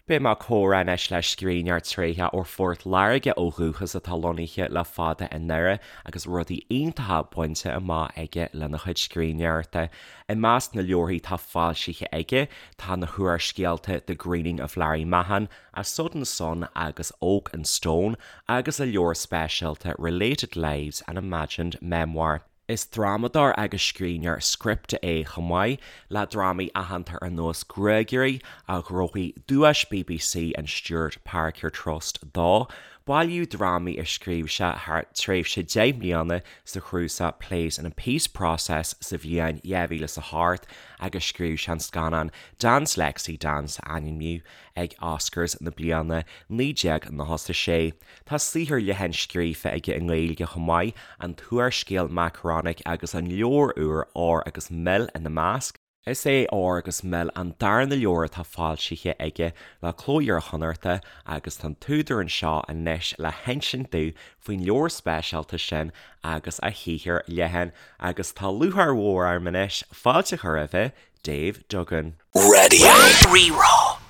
Beidh mé ag comhrá anois le scríbhneoir tréitheach ó Phort Láirge ó dhúchas atá lonnaithe le fada i nDoire agus rudaí iontacha bainte amach aige lena chuid scríbhneoireachta. I measc na leabharthaí atá foilsithe aige tá na húrscéalta The Greening of Larry Mahon, A Sudden Son agus Oak and Stone agus a leabhar speisialta Related Lives, An Imagined Memoir. Is drámadóir agus scríbhneoir scripte é chomh maith, le drámaí aitheanta ar nós Gruagairí, a ghnóthaigh Duais bbc an Stewart Parker Trust dó, bailiú drámaí a scríobh sé thar tréimhse 10 mbliana sa chnuasach Plays in a Peace Process sa bhliain 2008 agus scríobh sé an scannán Dance Lexie Dance a ainmníodh ag Oscars na bliana 1996. Tá saothar leathan scríofa aige i nGaeilge chomh maith, an t-úrscéal Makaronik agus an leabhar úr Ór agus Mil ina measc. Is é Ór agus Mil an darna leabhar atá foilsithe aige le Cló Iar-Chonnachta agus tá an t-údar anseo anois le hinsint dúinn faoin leabhar speisialta sin agus a shaothar leathan agus tá lúcháir mhór orm anois fáilte a chur roimhe, Dave Duggan. Radio Rí-Rá.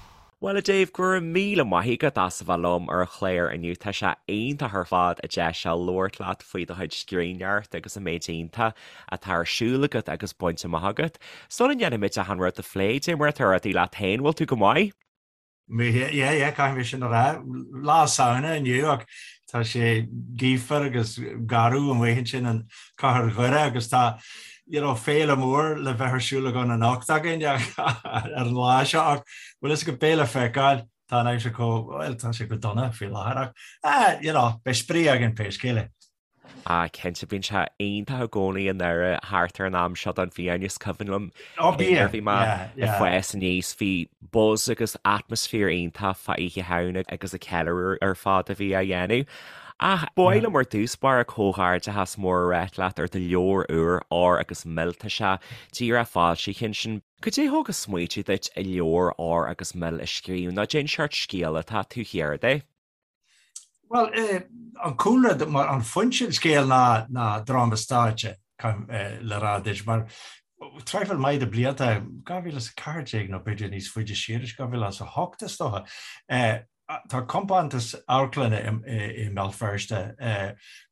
Bhuel a Dave, go raibh míle maith agat as a bheith liom ar an chlár inniu. Tá sé iontach ar fad an deis seo labhairt leat faoi do chuid scríbhneoireachta agus an méid iontach atá ar siúl agat agus bainte amach agat. Sula ndéanfaimid achan rud a phlé, cad é mar atá rudaí leat féin, bhfuil tú go maith? Yeah, yeah, caithfidh mé sin a rá. Lá Samhna inniu ach tá sé gaofar agus garbh amuigh ansin in cathair Dhoire agus tá you know, féile mór le bheith ar siúl againn anocht againn ar an lá seo ach bhfuil fhios agat beidh le feiceáil tá an aimsir chomh, well, tá sé go dona faoi láthair ach ah, you know, beidh spraoi againn pé scéal é. Ah, cinnte, bíonn sé iontach i gcónaí i nDoire thart ar an am seo den bhliain. Is cuimhin liom nuair a bhí mé ag fás aníos, bhí buzz agus atmaisféar iontach fá Oíche Shamhna agus an ceiliúradh ar fad a bhí á dhéanamh. Ach ba mhaith liom ar dtús báire comhghairdeachas mór a ráit leat ar do leabhar úr, Ór agus Mil. Tá sé díreach foilsithe ansin. Cad é thug an smaoitiú duit an leabhar Ór agus Mil a scríobh nó cén seort scéal atá taobh thiar de? Bhuel, an cúlra, mar an foinse an scéil ná ná dráma stáitse, le rá duit, mar traidhfil maith de blianta, 2014 nó b'fhéidir níos faide siar, 2008 is dócha, tá compántas amharclainne i mBéal Feirste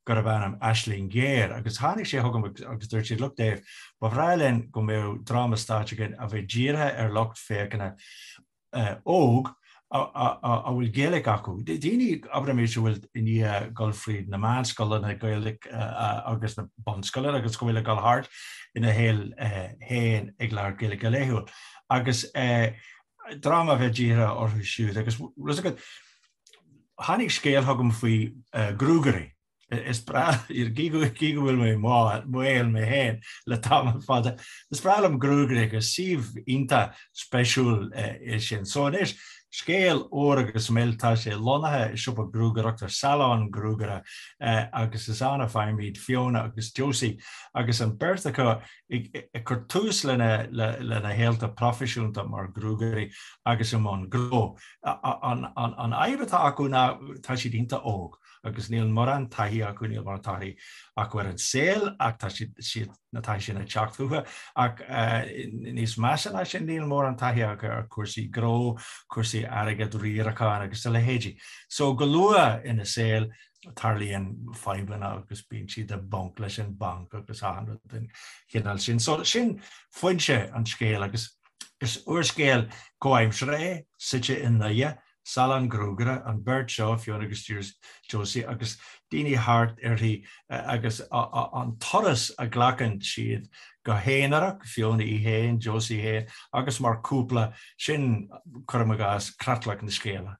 gurb ainm Aisling Ghéar agus tháinig sé chugam agus dúirt siad, look Dave, ba bhreá linn go mbeadh dráma stáitse againn a bheadh dírithe ar lucht féachana óg a bhfuil Gaeilge acu, daoine, abraimis, a bhfuil i ndiaidh dul fríd na meánscoileanna Gaeilge agus na bunscoileanna agus go bhfuil ag dul thart ina shaol féin ag labhairt Gaeilge go laethúil. Agus dráma a bheith dírithe orthu siúd. Agus bhfuil fhios agat, tháinig scéal chugam faoi ghruagairí. Is breá, gí go bhfuil mé maol mé féin le tamall fada, is breá liom gruagairí agus suíomh iontach spéisiúil é sin. So anois, scéal Ór agus Mil, tá sé lonnaithe i siopa gruagaireachta, salon gruagaire, agus is ann a faighimid Fiona agus Josie agus an beirt acu ag cur tús lena shaolta proifisiúnta mar ghruagairí agus i mbun gnó. An fhadhb atá acu ná tá siad iontach óg. agus níl mórán taithí acu, níl mórán taithí acu ar an saol ach tá siad, na taithí sin ag teacht chucu ach níos measa ná sin, níl mórán taithí acu ar chúrsaí gnó, cúrsaí airgid, riaracháin agus a leithéidí. So go luath ina saol tarlaíonn fadhbanna agus bíonn siad i bponc leis an banc agus achan rud den chineál sin. So sin foinse an scéil agus is úrscéal comhaimseartha é, suite i nDoire, Salon gruagaire, an bheirt seo, Fiona agus Josie, agus daoine thart uirthi agus an turas a ghlacann siad go haonarach, Fiona í féin, Josie féin, agus mar chúpla, sin, cuirim i gcás, creatlach na scéala.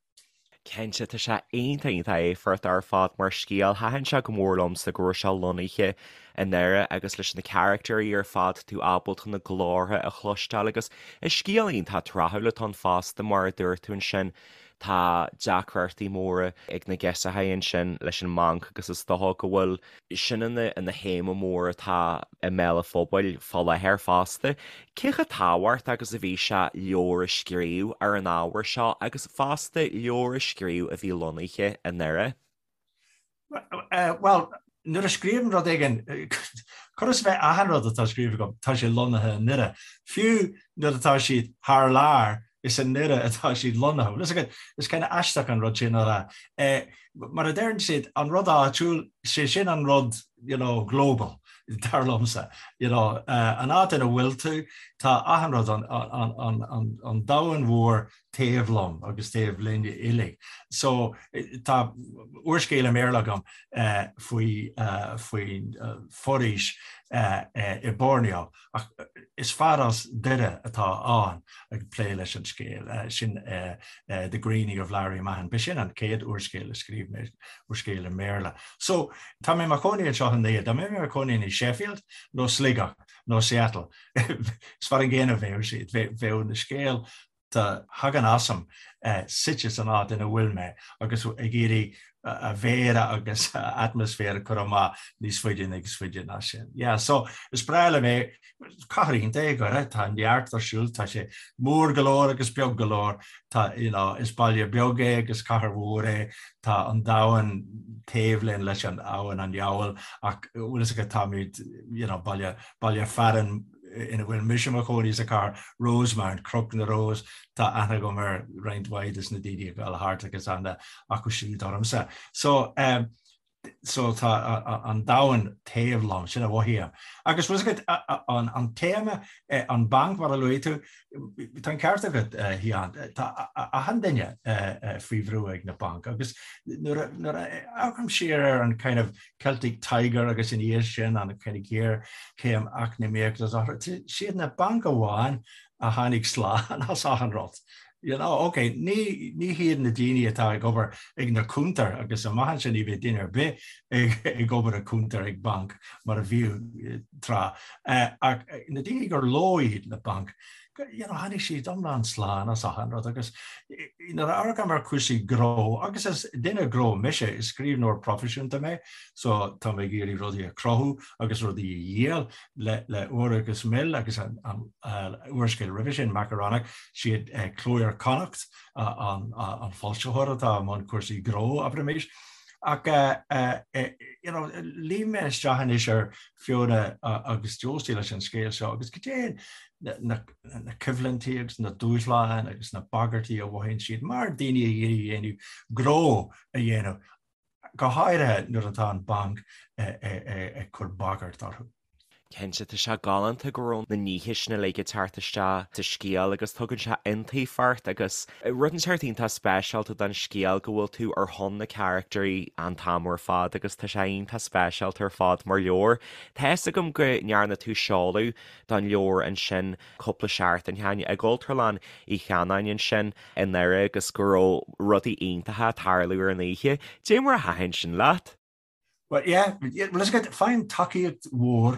Cinnte, tá sé iontach iontach éifeachtach ar fad mar scéal. Thaitin sé go mór liomsa go raibh sé lonnaithe i nDoire agus leis na caractéirí ar fad tú ábalta na glórtha a chloisteáil agus is scéal iontach tráthúil atá ann fosta mar a dúirt tú ansin tá deacrachtaí móra ag na girseachaí ansin leis an mbanc agus is dócha go bhfuil sin ina ina théama mór atá i mbéal an phobail fá láthair fosta. Cé chomh tábhachtach agus a bhí sé leabhar a scríobh ar an ábhar seo agus fosta leabhar a scríobh a bhí lonnaithe i nDoire? Bhuel, nuair a scríobhaim rud éigin, chóir a bheith achan rud atá scríofa agam, tá sé lonnaithe i nDoire. Fiú nuair atá siad thar lear, Is i nDoire atá siad lonnaithe. Bhfuil fhios agat, is kind of aisteach an rud sin a rá. Mar a deireann siad, an rud áitiúil, sé sin an rud, you know, global, dar liomsa. You know, an áit ina bhfuil tú, tá achan rud, an, an, an, an, an domhan mhór taobh liom agus taobh linn uilig. So, tá úrscéal i mBéarla agam faoi, faoin foraois i Borneo. Ach is fear as Doire atá ann ag plé leis an scéal sin The Greening of Larry Mahon. B'shin an chéad úrscéal a scríobh mé, úrscéal i mBéarla. So, tá mé i mo chónaí anseo i nDoire. Dá mbeinn i mo chónaí i Sheffield nó Sligeach nó Seattle, is mar an gcéanna a bheadh siad. Bheadh na scéal a thagann asam suite san áit ina bhfuil mé agus ag iarraidh a mhéara agus a atmaisféar a chur amach níos faide níos faide ná sin. Yeah, so is breá liom é, cathair iontach é Doire, tá neart ar siúl, tá sé mór go leor agus beag go leor, tá, you know, is baile beag é agus cathair mhór é, tá an domhan taobh linn leis an abhainn an Fheabhail ach bhfuil fhios agat táimid, you know, baile, baile fearainn ina bhfuil mise i mo chónaí sa chathair, Rosemount, Cnoc na Rós, tá aithne agam ar roinnt mhaith des na daoine ag dul thart agus aithne acu siúd ormsa. So, um, so tá an domhan taobh liom, sin a mhothaím. Agus bhfuil fhios agat an, an téama, eh, an banc mar a luaigh tú, tá an ceart agat, eh, Sheáin, tá achan duine eh, eh, faoi bhrú ag na bainc agus nuair a, nuair a amharcaim siar ar an kind of Celtic Tiger agus ina dhiaidh sin an kind of géarchéim eacnamaíochta siad na bainc amháin a tháinig slán as achan rud. You know, ok, ní, ní hiad na daoine atá ag obair ag na cuntair agus amach ansin ní bheidh duine ar bith ag, ag obair ag cuntar ag banc mar a bhíodh tráth. Ach na daoine gur leo iad na bainc, you know, tháinig siad iomlán slán as achan rud agus nuair a amharcaim ar chúrsaí gnó, agus is duine gnó mise, is scríbhneoir proifisiúnta mé, so tá mé ag iarraidh rudaí a chruthú agus rudaí a dhíol le, le Ór agus Mil agus an, an úrscéal roimhe sin, Makaronik, siad Cló Iar-Chonnacht an, an foilsitheoir atá i mbun cúrsaí gnó, abraimis. Ach you know, luím mé isteach anois ar Fiona agus Josie leis an scéal seo agus cad é na coimhlintí agus na dúshláin agus na bagairtí a mhothaíonn siad mar daoine ag iarraidh a dhéanamh gnó a dhéanamh, go háirithe nuair atá an banc ag cur bagairt orthu. Cinnte, tá sé galánta go raibh na nithe sin uilig ag teacht isteach sa scéal agus tugann sé iontaoibh ort agus rud inteacht iontach speisialta don scéal go bhfuil tú ar shon na caractairí an t-am ar fad agus tá sé iontach speisialta ar fad mar leabhar. Tá fhios agam go ndearna tú seoladh don leabhar ansin cúpla seachtain ó shin i gCultúrlann Uí Chanáin ansin i nDoire agus go raibh rudaí iontacha ag tarlú ar an oíche. Dé mar a thaitin sin leat? Well, yeah, bhfuil fhios agat, faighim tacaíocht mhór,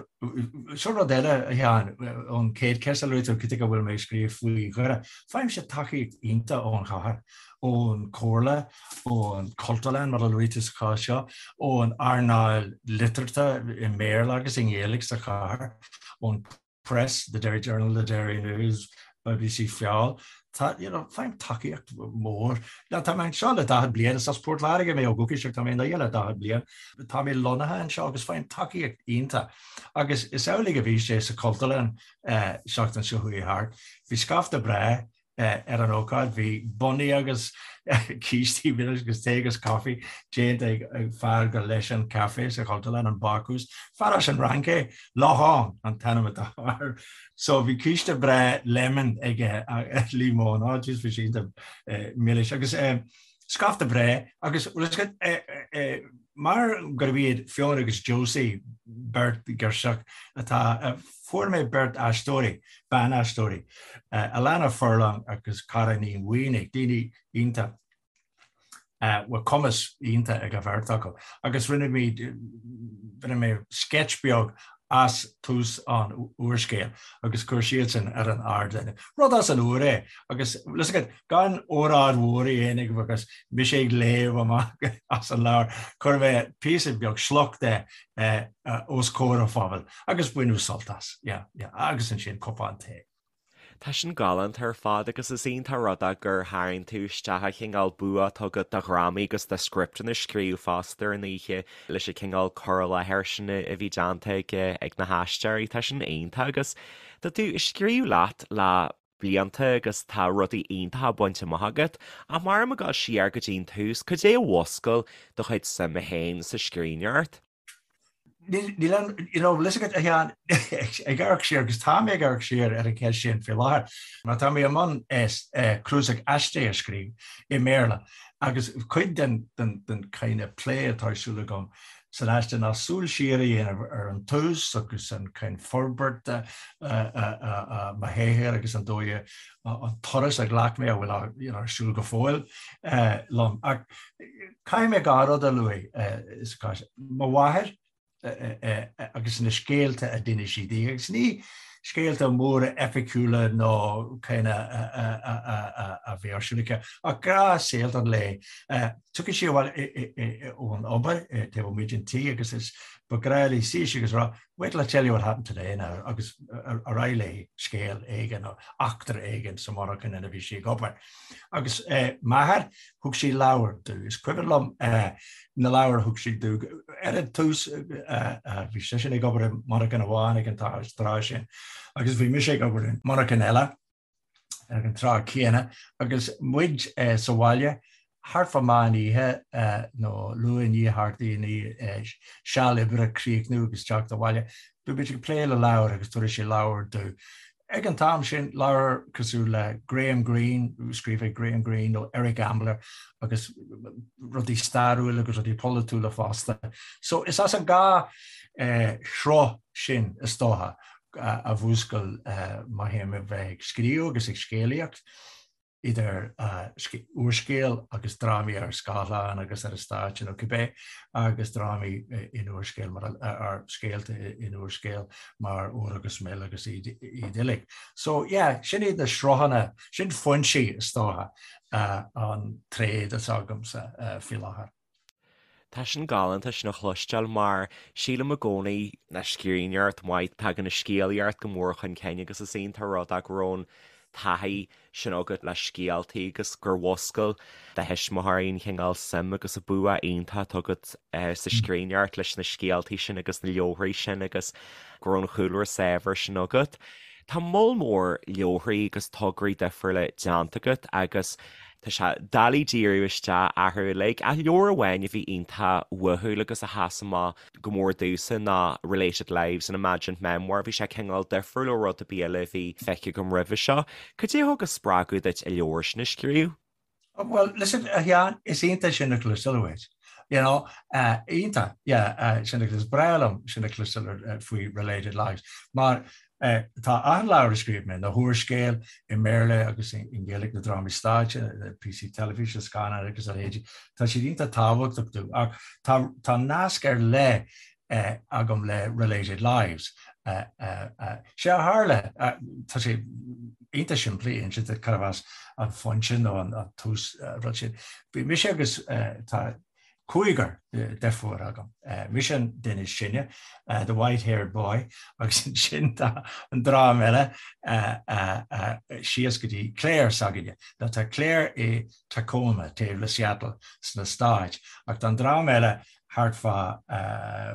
seo rud eile, a Sheáin, ón chéad cheist a luaigh tú, cad chuige a bhfuil mé ag scríobh faoi Dhoire, faighimse tacaíocht iontach ón chathair, ón chomhairle, ón Chultúrlann, mar a luaigh tú sa chás seo, ón earnáil liteartha i mBéarla agus i nGaeilge sa chathair, ón Press, The Derry Journal, The Derry News, BBC Feabhal. Tá, you know, faighim tacaíocht mhór. Now, tá mé anseo le 40 bliain, is as Port Láirge mé ó dhúchas ach tá mé i nDoire le 40 bliain. Tá mé lonnaithe anseo agus faighim tacaíocht iontach. Agus is amhlaidh a bhí sé sa Chultúrlann seachtain seo chuaigh thart. Bhí scaifte breá ar an ócáid. Bhí bonnaí agus cístí milis agus tae agus caife déanta ag fear gur leis an caife sa Chultúrlann, an Bácús. Fear as an Fhrainc é, Laurent an t-ainm atá air. So bhí císte breá lemon aige, líomóin, oh jeez bhí sé iontach milis. Agus scaifte breá agus mar gurb iad Fiona agus Josie beirt ghirseach atá, fuair mé beirt aisteoirí, ban-aisteoirí, Alana Furlong agus Cara Ní Mhaonaigh, daoine iontach, bhfuil cumas iontach ag an bheirt acu agus rinne muid, rinne mé sketch beag as tús an úrscéil agus chuir siadsan ar an ardán. Rud as an úr é agus bhfuil fhios agat, gan óráid mhór a dhéanamh agus mise ag léamh amach as an leabhar, chuir mé píosa beag sliocht de os comhair an phobail agus baineadh sult as. Yeah, yeah, agus ansin cupán tae. Tá sin galánta ar fad agus is iontach rud é gur tharraing tú isteach an cineál bua atá agat do dhrámaí agus do scripteanna a scríobh fosta ar an oíche leis an cineál cur i láthair sin a bhí déanta ag na haisteoirí. Tá sin iontach agus tá tú ag scríobh leat le. blianta agus tá rudaí iontacha bainte amach agat. Ach má táim ag dul siar go dtí an tús, cad é a mhúscail do chuid suime féin sa scríbhneoireacht? Níl an, you know, bhfuil fhios agat, a Sheáin, ag amharc siar, agus tá mé ag amharc siar ar an cheist sin faoi láthair, mar tá mé i mbun cnuasach aistí a scríobh i mBéarla agus cuid den den kind of plé atá ar siúl agam san aiste ná súil siar a dhéanamh ar an tús agus an kind forbairt mo shaothair agus an dóigh an turas a ghlac mé a bhfuil you know, ar siúl go fóill liom. Ach caithfidh mé dhá rud a luaigh sa chás. Mo mháthair agus na scéalta a d'inis sí di, agus ní scéalta móra eipiciúla nó kind a bhí ar siúl aici, ach gnáthscéalta an lae. Tiocfaidh sí abhaile ón obair taobh amuigh den tí agus is ba ghnách léi suí síos agus rá, 'Wait till I tell you what happened today now' agus ar aghaidh léi scéal éigin nó eachtra éigin sa mhonarcha ina bhí sí ag obair. Agus m'athair, thug sé leabhair domh. Is cuimhin liom na leabhair a thug sé domh. Ar an tús bhí seisean ag obair i monarcha amháin ag an tráth sin agus bhí mise ag obair i monarcha eile ag an tráth céanna agus muid sa bhaile thart fá meán oíche nó luath i ndiaidh thart i ndiaidh seal oibre críochnú agus teacht abhaile, bhí muid ag plé le leabhair agus tabharfaidh sé leabhar domh. Ag an t-am sin, leabhar cosúil le Graham Greene, scríofa ag Graham Greene nó Eric Ambler agus rudaí stairiúil agus rudaí polaitiúla fosta. So is as an dhá shruth sin is dócha a mhúscail mo shuim a bheith ag scríobh agus ag scéalaíocht. idir úrscéal agus drámaí ar scáileán agus ar an stáitse nó cibé, agus drámaí in úrscéal mar ar scéalta in úrscéal mar Ór agus Mil agus iad uilig. So yeah, sin iad na sruthanna, sin foinsí is dócha an tréad atá agamsa faoi láthair. Tá sin galánta sin a chloisteáil mar sílim i gcónaí le scríbhneoireacht mhaith tagann an scéalaíocht go mór chun cinn agus is iontach rud é go raibh an taithí sin agat le scéaltaí agus gur mhúscail do thuismitheoirí an chineál suim agus an bua iontach atá agat sa scríbhneoireacht leis na scéaltaí sin agus na leabharthaí sin agus go raibh an chúlra saibhir sin agat. Tá moll mór leabharthaí agus tograí difriúla déanta agat agus Tá sé doiligh díriú isteach orthu uilig, ach leabhar amháin a bhí iontach uathúil agus a sheas amach go mór domhsa ná Related Lives, an Imagined Memoir. Bhí sé cineál difriúil ó rud ar bith eile a bhí feicthe agam roimhe seo. Cad é a thug an spreagadh duit an leabhar sin a scríobh? Well, listen, a Sheáin, is iontach sin a chloisteáil uait. You know, iontach, yeah, sin a, is breá liom sin a chloisteáil faoi Related Lives, mar Tá achan leabhar a scríobh mé, na húrscéil i mBéarla agus i nGaeilge, na drámaí stáitse, na píosaí teilifíse, scannáin agus a leithéidí, tá siad iontach tábhachtach domh. Ach tá tá nasc ar leith agam le Related Lives. Sé a tharla, tá sé iontach simplí inse duit cad as an foinse nó an tús rud sin. Bhí mise agus tá cúigear deirfiúr agam. Mise an duine is sine, the white-haired boy, agus ansin tá an dream eile síos go dtí Claire s'againne. Now tá Claire i Tacoma, taobh le Seattle sna Stáit, ach tá an dream eile thart fá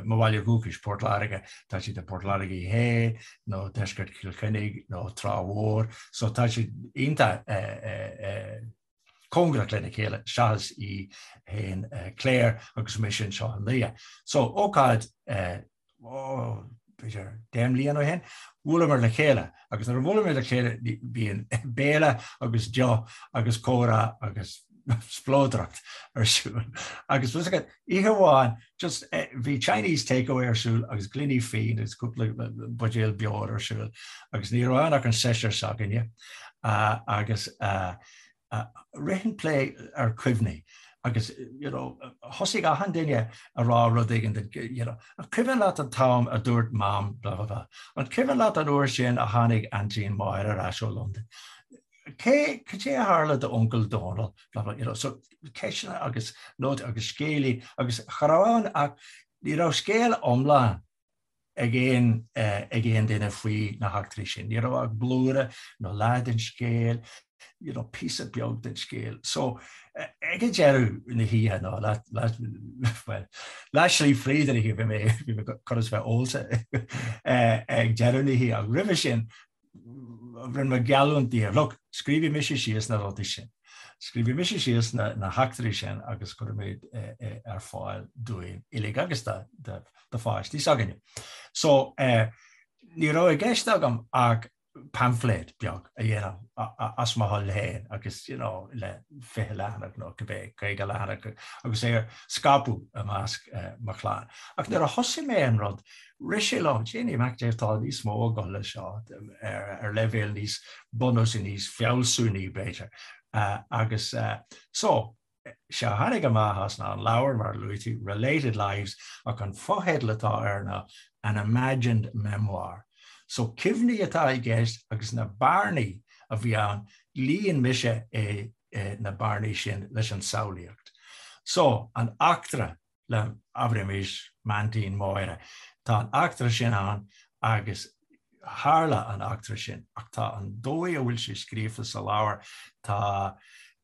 mo bhaile dhúchais, Port Láirge. Tá siad i Port Láirge Thoir nó deisceart Chill Chainnigh nó Trá Mhór, so tá siad iontach cóngarach lena chéile seachas í féin Claire agus mise anseo i nDoire. So, ócáid ó, b'fhéidir 10 mbliana ó shin, bhuaileamar le chéile agus nuair a bhuaileamar le chéile bíonn béile agus deoch agus comhrá agus spleodracht ar siúl. Agus bhí oíche amháin just bhí Chinese takeaway ar siúl agus gloiní fíon agus cúpla buidéal beoir ar siúl agus ní raibh ann ach an seisear s'againne agus rith an plé ar chuimhní agus you know thosaigh achan duine a rá rud éigin you know an cuimhin leat an t-am a dúirt mam blah blah blah an cuimhin leat an uair sin a tháinig aintín Máire ar ais ó Londain cé cad é a tharla d'uncail Dónal blah blah you know so ceisteanna agus nótaí agus scéalaí agus cha raibh ann ach ní raibh scéal iomlán ag aon ag aon duine faoi na heachtraí sin. Ní raibh ach blúire nó leath den scéal, you know, píosa beag den scéal. So ag an deireadh na hoíche nó well, leath slí fríd an oíche bhí mé bhí mé chun a bheith ólta ag deireadh na hoíche ach roimhe sin. Rinne mé geallúint daofa, look, scríobhfaidh mise síos na rudaí sin. Scríobhfaidh mise síos na heachtraí sin agus cuirfidh mé ar fáil dúinn uilig agus do pháistí s'againne. So, ní raibh i gceist agam ach paimfléad beag a dhéanamh as mo thoil féin agus, you know, le 20 leathanach nó cibé, 50 leathanach agus é a scaipeadh i measc mo chlann. Ach nuair a thosaigh mé an rud, rith sé liom, Janey Mac Dé, tá níos mó ag dul leis seo ar leibhéal níos bunúsaí, níos fealsúnaí b'fhéidir. Agus so, sé a tháinig amach as ná an leabhar, mar a luaigh tú, Related Lives, ach an fotheideal atá air ná An Imagined Memoir. So cuimhní atá i gceist agus na bearnaí a bhí ann, líon mise é na bearnaí sin leis an samhlaíocht. So, an eachtra le, abraimis, m'aintín Máire, tá an eachtra sin ann agus tharla an eachtra sin ach tá an dóigh a bhfuil sé scríofa sa leabhar, tá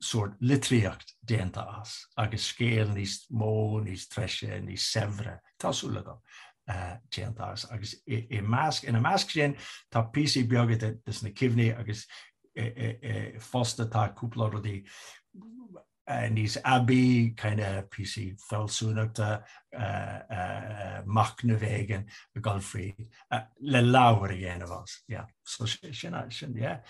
sórt litríocht déanta as agus scéal níos mó, níos treise, níos saibhre, tá súil agam, déanta as. Agus i measc, ina measc sin tá píosaí beaga de na cuimhní agus fosta tá cúpla rudaí níos aibí, kind of píosaí fealsúnachta, machnamh éigin ag dul fríd le leabhar a dhéanamh as. Yeah. So sin, sin, yeah.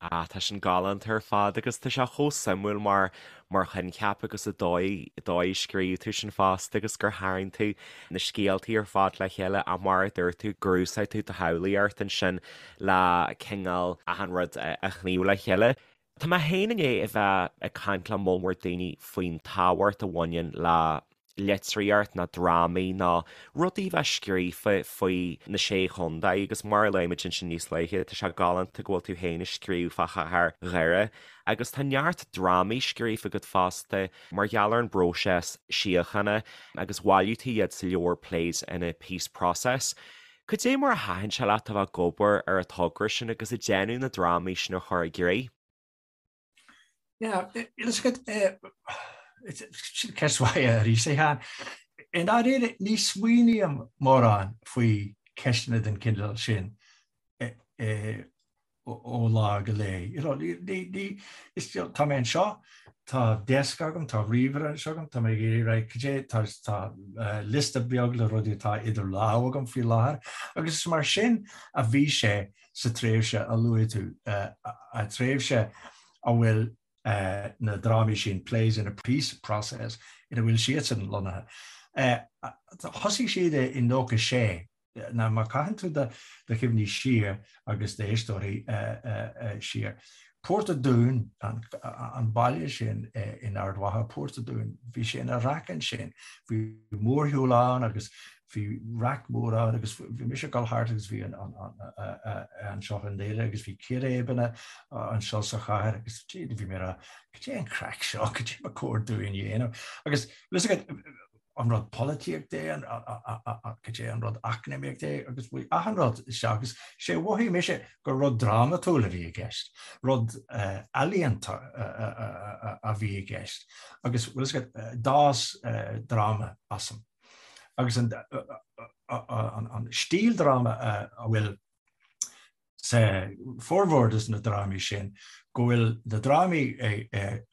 Ah, tá sin galánta ar fad agus tá sé chomh suimiúil mar mar choincheap agus an dóigh dóigh a scríobh tú sin fosta agus gur tharraing tú na scéaltaí ar fad le chéile ach mar a dúirt tú gur úsáid tú do shamhlaíocht ansin le cineál achan rud a shníomh le chéile. Tá mé féin i ndiaidh a bheith ag caint le moll mór daoine faoin tábhacht a bhaineann le litríocht nó drámaí nó rudaí a bheith scríofa faoi na Sé Chontae agus mar a luaigh muid ansin níos luaithe, tá sé galánta go bhfuil tú féin ag scríobh fá chathair Dhoire agus tá neart drámaí scríofa agat fosta mar gheall ar an bpróiseas síochána agus bhailigh tú iad sa leabhar Plays in a Peace Process. Cad é mar a thaitin sé leat a bheith ag obair ar an togra sin agus ag déanamh na drámaí sin a chur i gcrích? Yeah, sin ceist mhaith arís, a Sheáin. I ndáiríre, ní smaoiním mórán faoi cheisteanna den chineál sin ó lá go lá. You know, ní, ní, is, you know, tá mé anseo, tá desk agam, tá ríomhaire anseo agam, tá mé ag iarraidh, right, cad é, tá, tá uh, liosta beag le rudaí atá idir lámha agam faoi láthair, agus is mar sin a bhí sé sa tréimhse a luaigh tú, uh, a tréimhse a bhfuil uh, na drámaí sin, Plays in a Peace Process, ina bhfuil siadsan lonnaithe. Uh, thosaigh siad i 96, Now má chaitheann tú do chuimhní siar agus d'éisteoirí siar, Port a' Dúin, an baile sin in Ard Mhacha, Port a' Dúin, bhí sé ina raic ansin. Bhí mórshiúl ann agus bhí raic mór ann agus bhí mise ag dul thart agus bhí anseo i nDoire agus bhí círéibeanna anseo sa chathair agus bhí mé ag rá, cad é an craic seo, cad é ba chóir dúinn a dhéanamh? Agus an rud polaitíochta é, cad é an rud eacnamaíochta é, agus bhí achan rud isteach agus sé a mhothaigh mise gur rud drámatúil a bhí i gceist, rud ealaíonta a bhí i gceist agus bhfuil a fhios agat, d'fhás dráma asam. Agus an stíl dráma a bhfuil sa formhór de na drámaí sin, go bhfuil na drámaí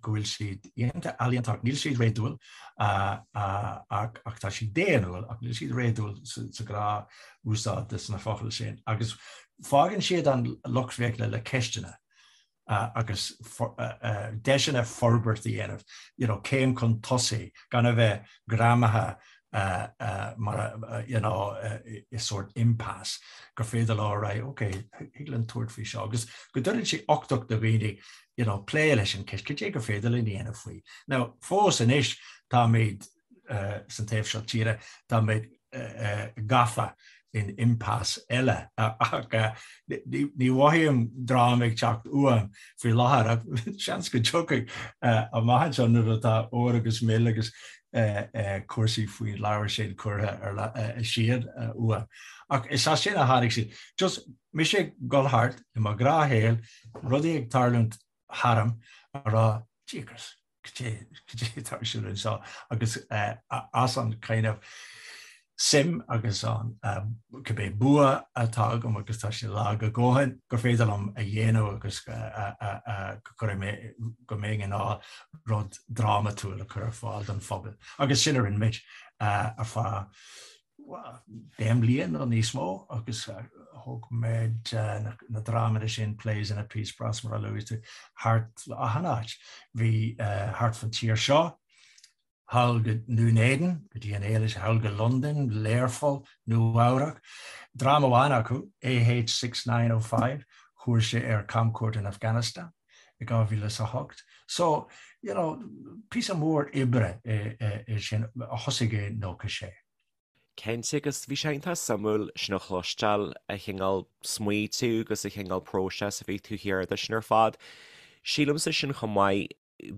go bhfuil siad iontach ealaíonta ach níl siad réadúil ach tá siad daonnúil ach níl siad réadúil sa ghnáth-úsáid de na focail sin agus fágann siad an lucht féachana le ceisteanna. agus deiseanna forbairt a dhéanamh, you know, céim chun tosaigh, gan a bheith greamaithe mar, you know, i sórt impasse, gur féidir leo right, ok, thig linn tabhairt faoi seo, agus go dtugann sé uchtach do dhaoine, you know, plé leis an ceist, cad é gur féidir linn a dhéanamh faoi. Now, fós anois, táimid san taobh seo tíre, táimid gafa in impasse eile ach ní mhothaím dráma ag teacht uaim faoi láthair ach seans go dtiocfaidh amach anseo nuair atá ór agus mil agus cúrsaí faoin leabhar sin curtha siar uaim. Ach is as sin a tháinig siad. Just mise ag dul thart i mo ghnáthshaol, rudaí ag tarlúint tharam ag rá Jeepers! cad é atá ar siúl anseo agus as an kind of suim agus an Cibé bua atá agam, agus tá sé lag a dhóthain, gur féidir liom a dhéanamh agus go gcuirfidh mé, go mbeinn in ann rud drámatúil a chur ar fáil don phobal. Agus sin a rinne muid ar feadh 10 mbliain nó níos mó agus thóg muid na drámaí sin, Plays in a Peace Brass mar a luaigh tú, thart achan áit. Bhí thart fan tír seo, thall go nDún Éideann, go dtí an Éilis, thall go Londain, Learpholl, Nua Eabhrac. Dráma amháin acu, AH 6905, chuaigh sé ar camchuairt in Afghanistan i 2008. So, you know, píosa mór oibre é sin a thosaigh i 96. Cinnte, agus bhí sé iontach suimiúil sin a chloisteáil, an cineál smaoitiú agus an cineál próiseas a bhí taobh thiar de sin ar fad. Sílimse sin chomh maith,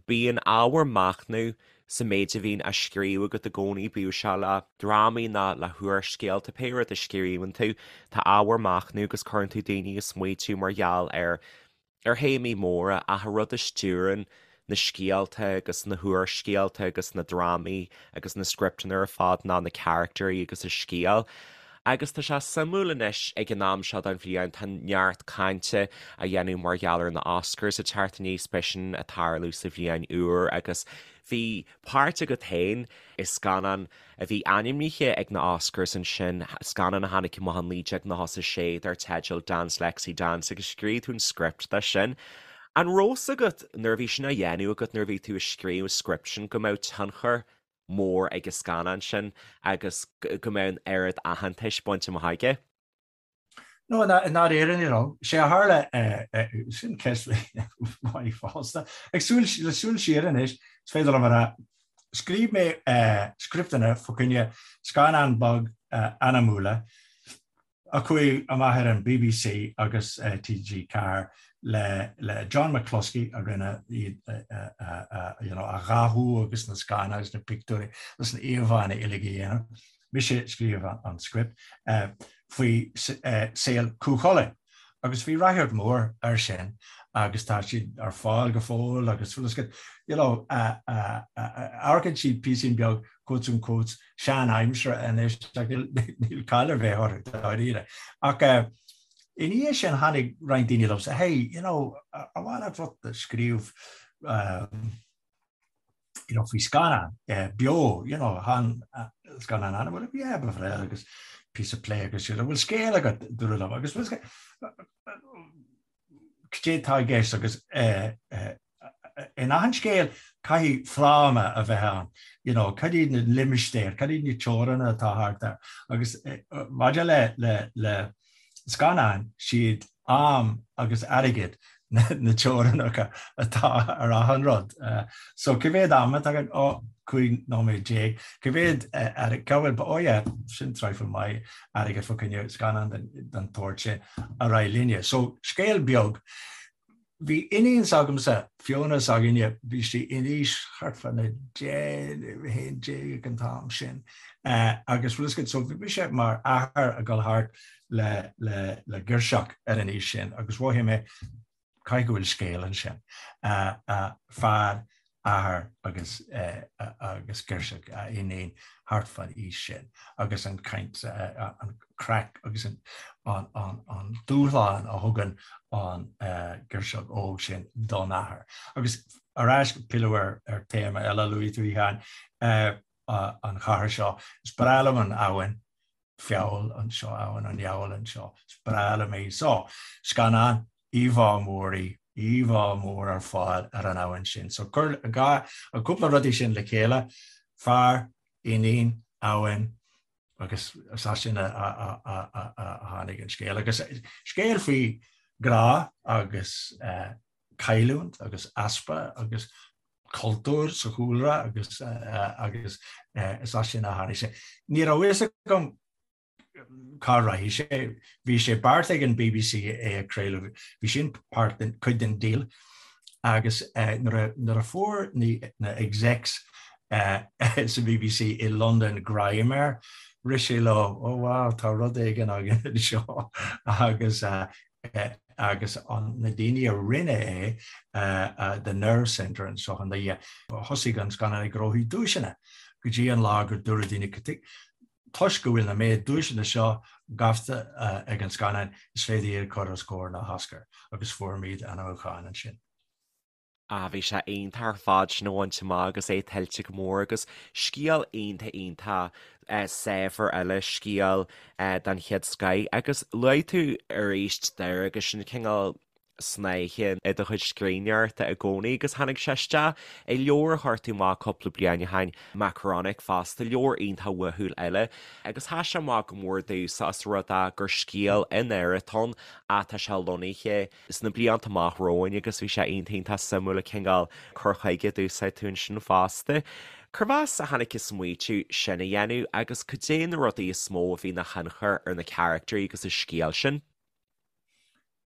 Bíonn ábhar machnaimh sa méid a bhíonn á scríobh agat i gcónaí, bíodh sé le drámaí ná le húrscéalta, pé rud a scríobhann tú, tá ábhar machnaimh agus cuireann tú daoine ag smaoitiú mar gheall ar ar théamaí móra ach an rud a stiúrann na scéalta agus na húrscéalta agus na drámaí agus na scripteanna ar fad ná na caractéirí agus an scéal. Agus tá sé suimiúil anois ag an am seo den bhliain, tá neart cainte á dhéanamh mar gheall ar na Oscars ag teacht aníos, beidh sin ag tarlú sa bhliain úr agus bhí páirt agat féin i scannán a bhí ainmnithe ag na Oscars ansin, scannán a tháinig amach in 1996 dar teideal Dance Lexi Dance agus scríobh tú an script dó sin. An raibh fhios agat nuair a bhí sin á dhéanamh agat, nuair a bhí tú ag scríobh an script sin, go mbeadh tionchar mór ag an scannán sin agus go mbeadh an oiread aitheantais bainte amach aige. No, i ndáiríre ní raibh. Sé a tharla, sin ceist mhaith fosta. Ag súil, le súil siar anois, is féidir liom a rá, scríobh mé scripteanna fá choinne scannán beag anamúla a chuaigh amach ar an bbc agus TG4 le John McCluskey a rinne iad you know a dhathú agus na scannáin agus na pictiúirí agus na íomhánna uilig a dhéanamh. Mise a scríobh an script faoi saol Chú Chulainn agus bhí ráchairt mhór air sin agus tá siad ar fáil go fóill agus you know amharcann siad píosín beag quotes unquotes sean-aimseartha anois ach níl caill ar bith orthu dáiríre. Ach i ndiaidh sin tháinig roinnt daoine liomsa, hey, you know, ar mhaith leat rud a scríobh you know, faoi scannán beo, you know, chan scannán anamúil, yeah, ba bhreá agus píosa plé agus siad, bhfuil scéal agat dúradh liom agus cad é atá i gceist agus in achan scéal caithfidh fráma a bheith ann, you know, cad iad na limistéir, cad iad na teoranna atá thart air agus maidir le le le scannáin, siad am agus airgead na teorainneacha atá ar achan rud. So cé mhéad am atá againn? Ó, 15 nóiméad. Cé mhéad airgead? Cá bhfuil? Ó yeah, sin traidhfil maith airgead fá choinne scannán den tsórt sin ar aghaidh linne. So scéal beag. Bhí iníon s'agamsa, Fiona s'againne, bhí sí in aois thart fá na 10, 11 ag an t-am sin agus bhfuil fhios agat, so bhí mise mar athair ag dul thart le le le girseach ar an aois sin agus mhothaigh mé caithfidh go bhfuil scéal ansin. Fear athair agus agus girseach a iníon thart fán aois sin agus an chaint, an craic agus an an dúshlán a thugann an girseach óg sin don athair. Agus ar ais, pilleadh ar ar téama eile a luaigh tú, a Sheáin, an chathair seo. Is breá liom an abhainn. Feabhal anseo, Abhainn an Fheabhail anseo. Is breá liom é. So, scannán, íomhá mór í, íomhá mór ar fáil ar an abhainn sin. So, cuir an dhá, an cúpla rudaí sin le chéile, fear, iníon, abhainn, agus is as sin a tháinig an scéal. Agus scéal faoi grá agus cailliúint agus easpa agus cultúr sa chúlra agus agus is as sin a tháinig sé. Ní raibh fhios agam cá rachaidh sé. Bhí sé beartaithe ag an bbc é a chraoladh, bhí sin páirt den, cuid den deal agus nuair a fuair na execs sa bbc i Londain greim air, rith sé leo, oh wow, tá rud éigin againn anseo agus agus na daoine a rinne é, The Nerve Centre anseo i nDoire, thosaigh an scannán ag gnóthú duaiseanna go dtí an lá gur dúradh daoine. Toisc go bhfuil na méid duaiseanna seo gaibhte ag an scannán, is féidir iad a chur os comhair na hOscar agus fuairimid ainmniúchán ansin. Ah bhí sé iontach ar fad sin a bhaint amach agus é tuillte go mór agus scéal iontach iontach saibhir eile, scéal den chéad scoith agus luaigh tú arís Doire agus sin cineál snáithe i do chuid scríbhneoireachta i gcónaí agus tháinig sé isteach i leabhar a chuir tú amach cúpla bliain ó shin, Makaronik fosta, leabhar iontach uathúil eile agus sheas sé amach go mór domhsa os rud é gur scéal i nDoire atá ann ach tá sé lonnaithe sna blianta amach romhainn agus bhí sé iontach iontach suimiúil an cineál cur chuige a d'úsáid tú ansin fosta. Cérbh as a tháinig an smaoitiú sin a dhéanamh agus cad é na rudaí is mó a bhí ina thionchar ar na caractairí agus an scéal sin?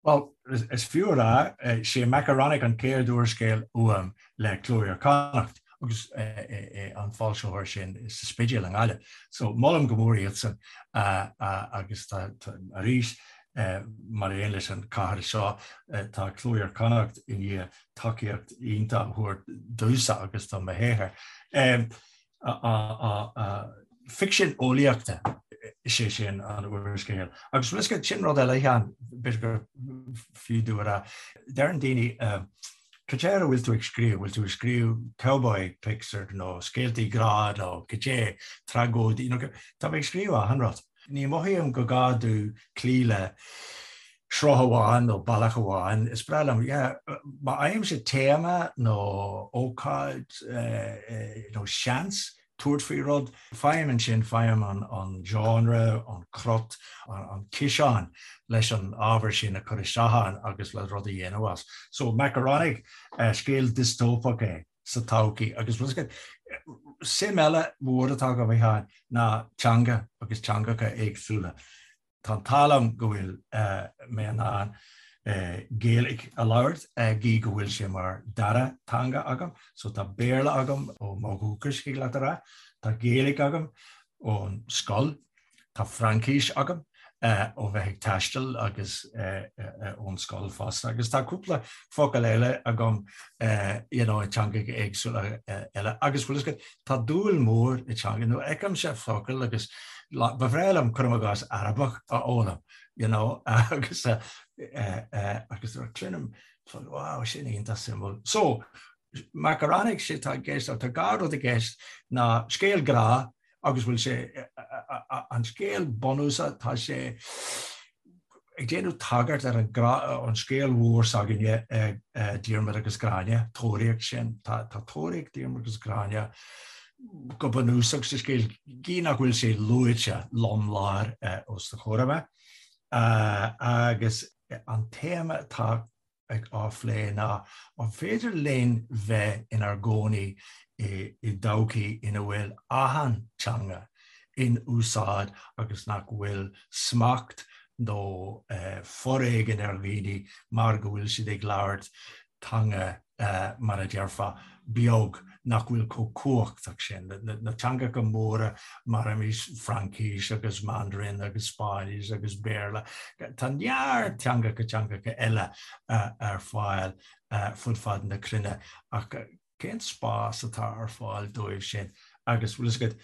Bhuel, is fiú a rá, sé Makaronik an chéad úrscéal uaim le Cló Iar-Chonnacht agus an foilsitheoir sin sa Spidéal i nGaillimh. So molaim go mór iadsan agus tá arís Mar aon leis an chathair seo, tá Cló Iar-Chonnacht i ndiaidh tacaíocht iontach a thabhairt domhsa agus do mo shaothar. Ficsean eolaíochta is é sin an úrscéal. Agus bhfuil a fhios agat, sin rud eile, a Sheáin, b'fhéidir gur fiú domh a rá. Deireann daoine, cad é ar a bhfuil tú ag scríobh? Bhfuil tú ag scríobh cowboy pics nó scéaltaí grá nó cad é, tragóidí, tá mé ag scríobh achan rud. Ní mothaím go gá domh cloí le sruth amháin nó bealach amháin. Is breá liom, yeah, má fhaighimse téama nó ócáid nó seans tabhairt faoi rud, faighim ansin, faighim an genre, an crot, an ciseán leis an ábhar sin a chur isteach ann agus le rud a dhéanamh as. So Makaronik, scéal diostóipeach é. sa todhchaí. Agus bhfuil a fhios agat, suim eile mhór atá agam, a Sheáin, ná teanga agus teangacha éagsúla. Tá an t-ádh liom go bhfuil mé in ann Gaeilge a labhairt, gí go bhfuil sé mar dara teanga agam. So tá Béarla agam ó mo dhúchas, thig leat a rá. Tá Gaeilge agam ón scoil. Tá Fraincis agam ó bheith ag taisteal agus ón scoil fosta agus tá cúpla focal eile agam you know i dteangacha éagsúla eile agus bhfuil a fhios agat tá dúil mhór i dteanga nó feicimse focal agus ba bhreá liom cuirim i gcás Arabach a fhoghlaim you know agus agus cluinim wow sin iontach suimiúil. So Makaronik sé tá i gceist tá dhá rud i gceist ná scéal grá agus bhfuil sé, an scéal bunúsach, tá sé ag déanamh tagairt ar an an scéal mhór s'againne, Diarmaid agus Gráinne, tóraíocht sin, tá tóraíocht Diarmaid agus Gráinne go bunúsach sa scéal, gí nach bhfuil sé luaite lom láir os do chomhair amach. Agus an téama atá ag á phlé ná an féidir linn bheith inár gcónaí i dtodhchaí ina bhfuil achan teanga in úsáid agus nach bhfuil smacht nó foréigean ar dhaoine mar go bhfuil siad ag labhairt teanga mar a déarfá, beag nach bhfuil chomh cumhachtach sin. Na teangacha móra mar arís Fraincis agus Mandarin agus Spáinnis agus Béarla, tá neart teangacha teangacha eile ar fáil fud fad na cruinne ach cén spás atá ar fáil dóibh sin? Agus bhfuil a fhios agat,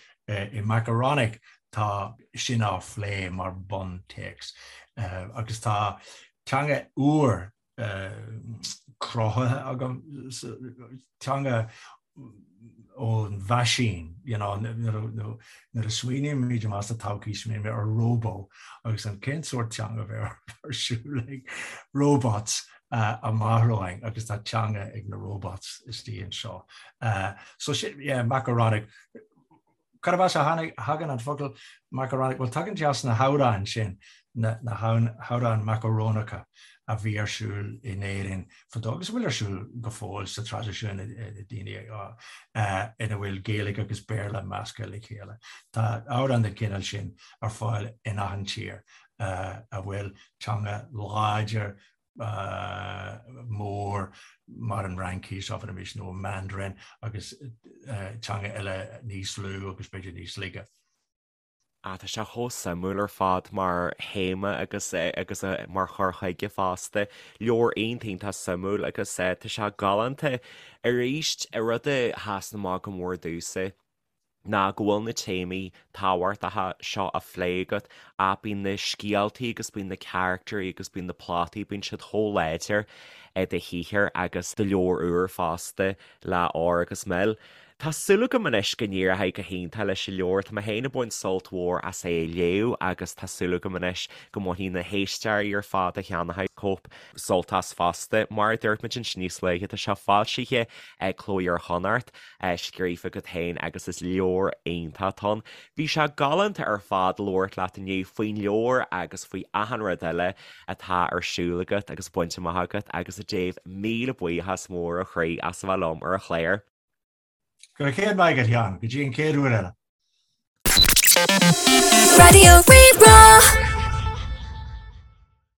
i Makaronik tá sin á phlé mar buntéacs agus tá teanga úr cruthaithe agam, teanga ón mheaisín, you know, nuair a smaoinímid amach sa todhchaí, smaoinímid ar róbó agus an cén sórt teanga a bheidh ar siúl ag robots amach romhainn agus tá teanga ag na robots istigh anseo. So sin, yeah, Makaronik. Cárb as a thagann an focal macaronic? Bhuel, tagann sé as na hamhráin sin, na hamhráin macarónacha a bhí ar siúl in Éirinn fadó agus a bhfuil ar siúl go fóill sa traidisiún daoine ina bhfuil Gaeilge agus Béarla measctha le chéile. Tá amhráin den chineál sin ar fáil in achan tír a bhfuil teanga láidir mór mar an Fhraincis, abraimis, nó an Mandarin agus teanga eile níos lú agus b'fhéidir níos laige. Ah, tá sé chomh suimiúil ar fad mar théama agus agus mar chur chuige fosta. Leabhar iontach iontach suimiúil agus tá sé galánta. Arís, rud a sheasann amach go mór domhsa. Ná go bhfuil na téamaí tábhachtacha seo á phlé agat ach bíonn na scéaltaí agus bíonn na caractairí agus bíonn na plotaí, bíonn siad chomh láidir i do shaothar agus do leabhar úr fosta le Ór agus Mil. Tá súil agam anois go n-éireoidh go hiontach leis an leabhar. Tá mé féin ag baint sult mhór as é a léamh agus tá súil agam anois go mbainfidh na héisteoirí ar fad a cheannóidh cóip sult as fosta. Mar a dúirt muid ansin níos luaithe, tá sé foilsithe ag Cló Iar-Chonnacht. scríofa agat féin agus is leabhar iontach atá ann. Bhí sé galánta ar fad labhairt leat inniu faoin leabhar agus faoi achan rud eile atá ar siúl agat agus bainte amach agat agus a Dave míle buíochas mór ó chroí as a bheith liom ar an chlár. Go raibh céad maith agat, a Sheáin. Go dtí an chéad uair eile. Raidió Rí-Rá.